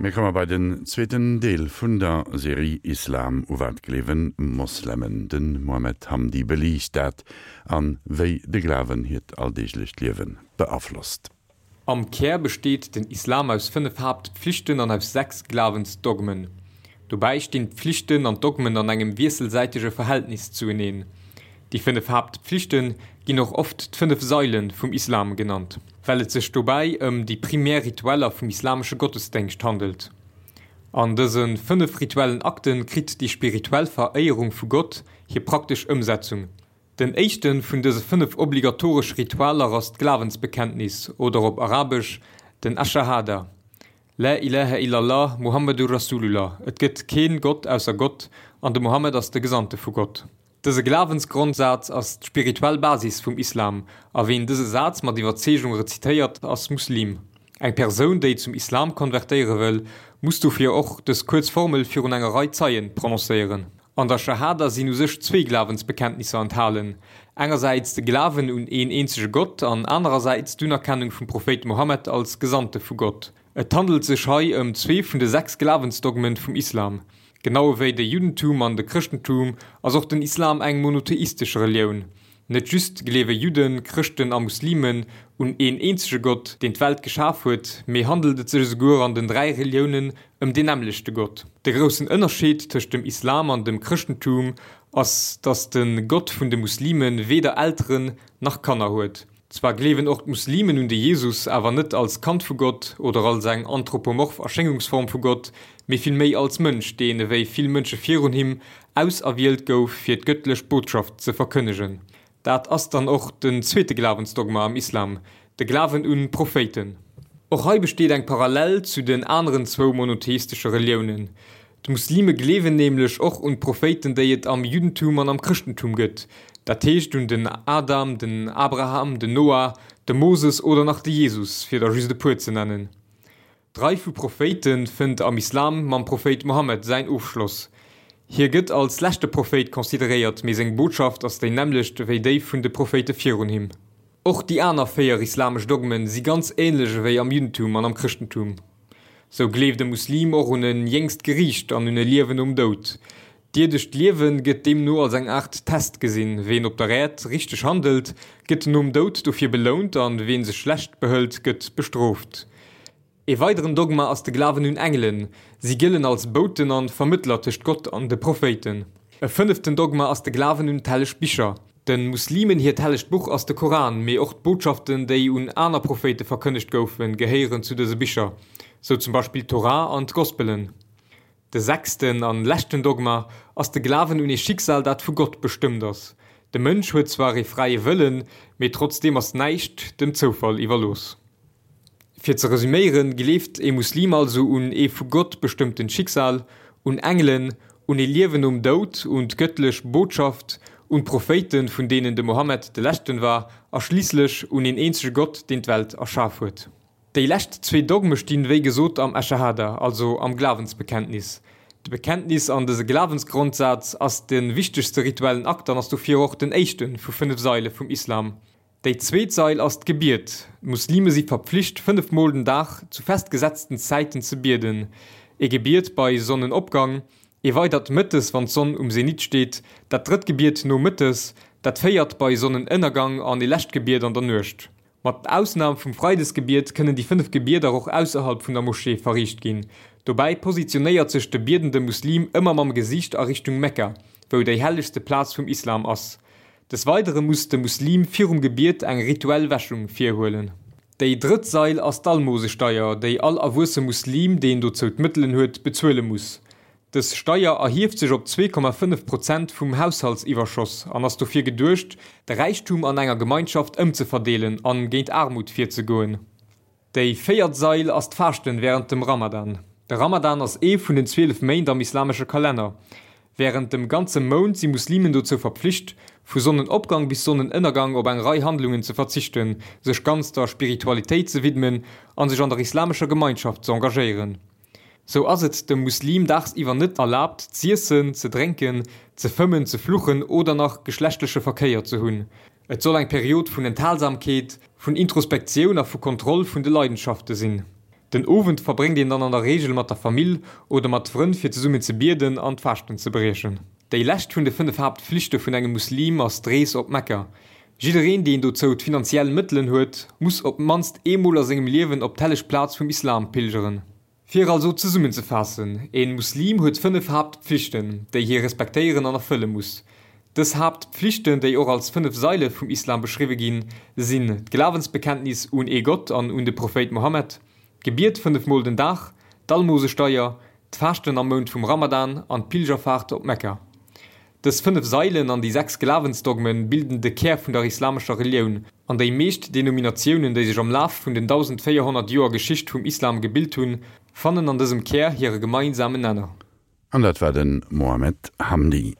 Mir komme bei den zweeten Deel vun der Serie Islam, U wat gleewen Moslemen? De Mohamed Hamdi beliicht dat an wéi de Glawen hiert alldeeglecht Liewe beaflosst. Am Kär besteet den Islam aus 5 Haaptpflichten an aus 6 Glawensdogmen. Dobäi stinn d'Pflichten an d'Dogmen an engem wiesselsäitege Verhältnis zueneen. Déi 5 Haaptpflichte ginn och oft d'fënnef Saile vum Islam genannt, well et sech dobäi ëm déi primär Ritueller vum islamesche Gottesdéngscht handelt. An dëse 5 rituellen Akte kritt déi spirituell Veréierung vu Gott hir praktesch Ëmsetzung. Den éischte vun dëse 5 obligatoresch Ritualer ass d'Glawensbekenntnis oder op Arabesch den Aschahada, La ilaha illallah, Muhammadur Rasulullah, Et gëtt keen Gott ausser Gott an de Mohammed ass de Gesandte vu Gott. Dëse Glawensgrondsaz ass d'spirituell Basis vum Islam, a ween dëse Saz mat Iwwerzeegung rezitéiert, ass Muslim. Eng Persoun, déi zum Islam konvertéiere wëll, muss dofir och dës kuerz Formel virun enger Rei Zeien prononcéieren. An der Schahada sinn u sech zwee Glawensbekenntnisser enthalen, engersäits de Glawen un een eenzege Gott an anerersäits d'Unerkennung vum Prophéit Mohammed als Gesandte vu Gott. Et handelt sech hei ëm zwee vun de 6 Glawensdogmen vum Islam. Genau ewéi de Juddentum an de Chrëschtentum ass och den Islam eng monotheistesch Relioun. Net just gleewe Judden, Chrëschten a Muslimen un een eenzege Gott, deen d'Welt geschaf huet, mee handelt et sech esouguer an den 3 Reliounen ëm deen nämmlechte Gott. De groussen Ënnerscheed tëscht dem Islam an dem Chrëschtentum ass, datt de Gott vun de Muslime weder Elteren nach Kanner huet. Zwar gleewen och d'Muslimen un de Jesus, awer net als Kand vu Gott oder als eng anthropomorph Erschéngungsform vu Gott, mee villméi als Mënsch, deen, ewéi vill Mënsche virun him, auserwielt gouf, fir d'gëttlech Botschaft ze verkënnegen. Dat ass dann och den zweete Glawensdogma am Islam, de Glawen un Prophéiten. Och hei besteet eng Parallel zu den aneren zwou monotheistesche Reliounen. D'Muslime gleewen nämlech och un d'Prophéiten, déi et am Juddentum an am Chrëschtentum gëtt, dat heescht un den Adam, den Abraham, den Noah, de Moses oder nach de Jesus, fir der just e puer ze nennen. D'Rei vu Prophéite fënnt am Islam mam Prophéit Mohammed säin Ofschloss. Hie gëtt als leschte Prophéit consideréiert, mee seng Botschaft ass déi nämmlecht ewéi déi vun de Prophéite virun him. Och déi aner 4 islamesch Dogmen si ganz änlech ewéi am Juddentum an am Chrëschtentum. Sou gleeft e Muslim och un e jéngst Geriicht an un e Liewen nom Doud. D'ierdescht Liewe gëtt deemno als eng Aart Test gesinn, Ween op der Äerd richteg handelt, gëtt nom Doud dofir belount an ween sech schlecht behëlt, gëtt bestrooft. E weideren Dogma ass de Glawen un Engelen. Si gëllen als Bouten an Vermëttler tëscht Gott an de Prophéiten. E fënneften Dogma ass de Glawen un d'helleg Bicher. De Muslimen hiert hellegt Buch ass de Koran, mee och d'Botschaften, déi un aner Prophéite verkënnegt goufen, gehéieren zu dëse Bicher, sou zum Beispill d'Torah an d'Gospelen. De sechsten an leschten Dogma ass de Glawen un ee Schicksal, dat vu Gott bestëmmt ass. De Mënsch huet zwar ee fräie Wëllen, mee trotzdeem ass näischt dem Zoufall iwwerlooss. Fir ze resüméieren, gleeft ee Muslim also un ee vu Gott bestëmmtent Schicksal, un Engelen, un ee Liewen nom Doud, un d'gëttlech Botschaft, un d'Prophéiten, vun deenen de Mohammed de leschten war, a schliisslech un een eenzege Gott, deen d'Welt erschaf huet. Déi lescht zwee Dogme stinn, wéi gesot, am Aschahada, also am Glawensbekenntnis. De Bekenntnis an dëse Glawensgrondsaz ass de wichtegste rituellen Akt an ass dofir och den éischte vu 5 Saile vum Islam. Déi zweet Sail ass d'Gebiet. D'Muslime si verpflicht, 5 Mol den Dag zu festgesetzten Zäiten ze bieden. Ee Gebiet bei Sonnenopgang, ee weidert mëttes, wann d'Sonn um Zenit steet, dat drëtt Gebiet nomëttes, dat véiert bei Sonnenënnergang an ee lescht Gebiet an der Nuecht. Mat Ausnam vum Freidesgebiet kënnen déi 5 Gebieder och ausserhalb vun der Moschee verriicht ginn. Dobäi positionéiert sech de biedende Muslim ëmmer mam Gesiicht a Richtung Mekka, wou déi hellegste Plaz vum Islam ass. Des Weidere muss de Muslim virum Gebiet eng rituell Wäschung virhuelen. Déi drëtt Sail ass d'Almosesteier, déi all erwuesse Muslim, deen dozou d'Mëttelen huet, bezuele muss. Dës Steier erhieft sech op 2,5 Prozent vum Haushaltsiwwerschoss an ass dofir geduecht, de Räichtum an enger Gemeinschaft ëmzeverdeelen an géint Aarmut virzegoen. Déi véiert Sail ass d'Faaschten wärend dem Ramadan. De Ramadan ass ee vun den 12 Méint am islamesche Kalenner. Wärend dem ganze Mount si Muslimen dozou verpflicht, vu Sonnenopgang bis Sonnenënnergang op eng Rei Handlungen ze verzichten, sech ganz der Spiritualitéit ze widmen an sech an der islamescher Gemeinschaft ze engagéieren. Sou ass et dem Muslim daagsiwwer net erlaabt z'iessen, ze drénken, ze fëmmen, ze fluchen oder nach geschlechtleche Verkéier ze hunn. Et soll eng Period vun Enthalsamkeet, vun Introspektioun a vu Kontroll vun de Leidenschafte sinn. Den Owend verbréngt een dann an der Reegel mat der Famill oder mat Frënn fir zesummen ze bieden an d'Faaschten ze briechen. Déi lescht vun de 5 Haaptflichte vun engem Muslim ass d'Rees op Mekka. Jiddereen deen dozou d'finanziell Mëttelen huet, muss op d'mannst eemol a sengem Liewen op d'helleg Plaz vum Islam pilgeren. Fir also zesummenzefaassen, Een Muslim huet 5 Haaptpflichten, déi hie respektéieren an erfëlle muss. Dës Haaptpflichten, déi och als 5 Saile vum Islam beschriwwe ginn, sinn, d'Glawensbekenntnis un ee Gott an un de Prophéit Mohammed, d'Gebiet 5 mol den Dag, d'Almosesteier, d'Faaschten am Mount vum Ramadan an d'Pilgerfaart op Mekka. Dës 5 Sailen an déi 6 Glawensdogmen bilden de Kär vun der islamescher Relioun, an déi meescht Denominatiounen, déi sech am Laf vun den 1.400 Joer Geschicht vum Islam gebilt hunn, fannen an dësem Kär hire gemeinsamen Nenner. An dat war de Mohamed Hamdi.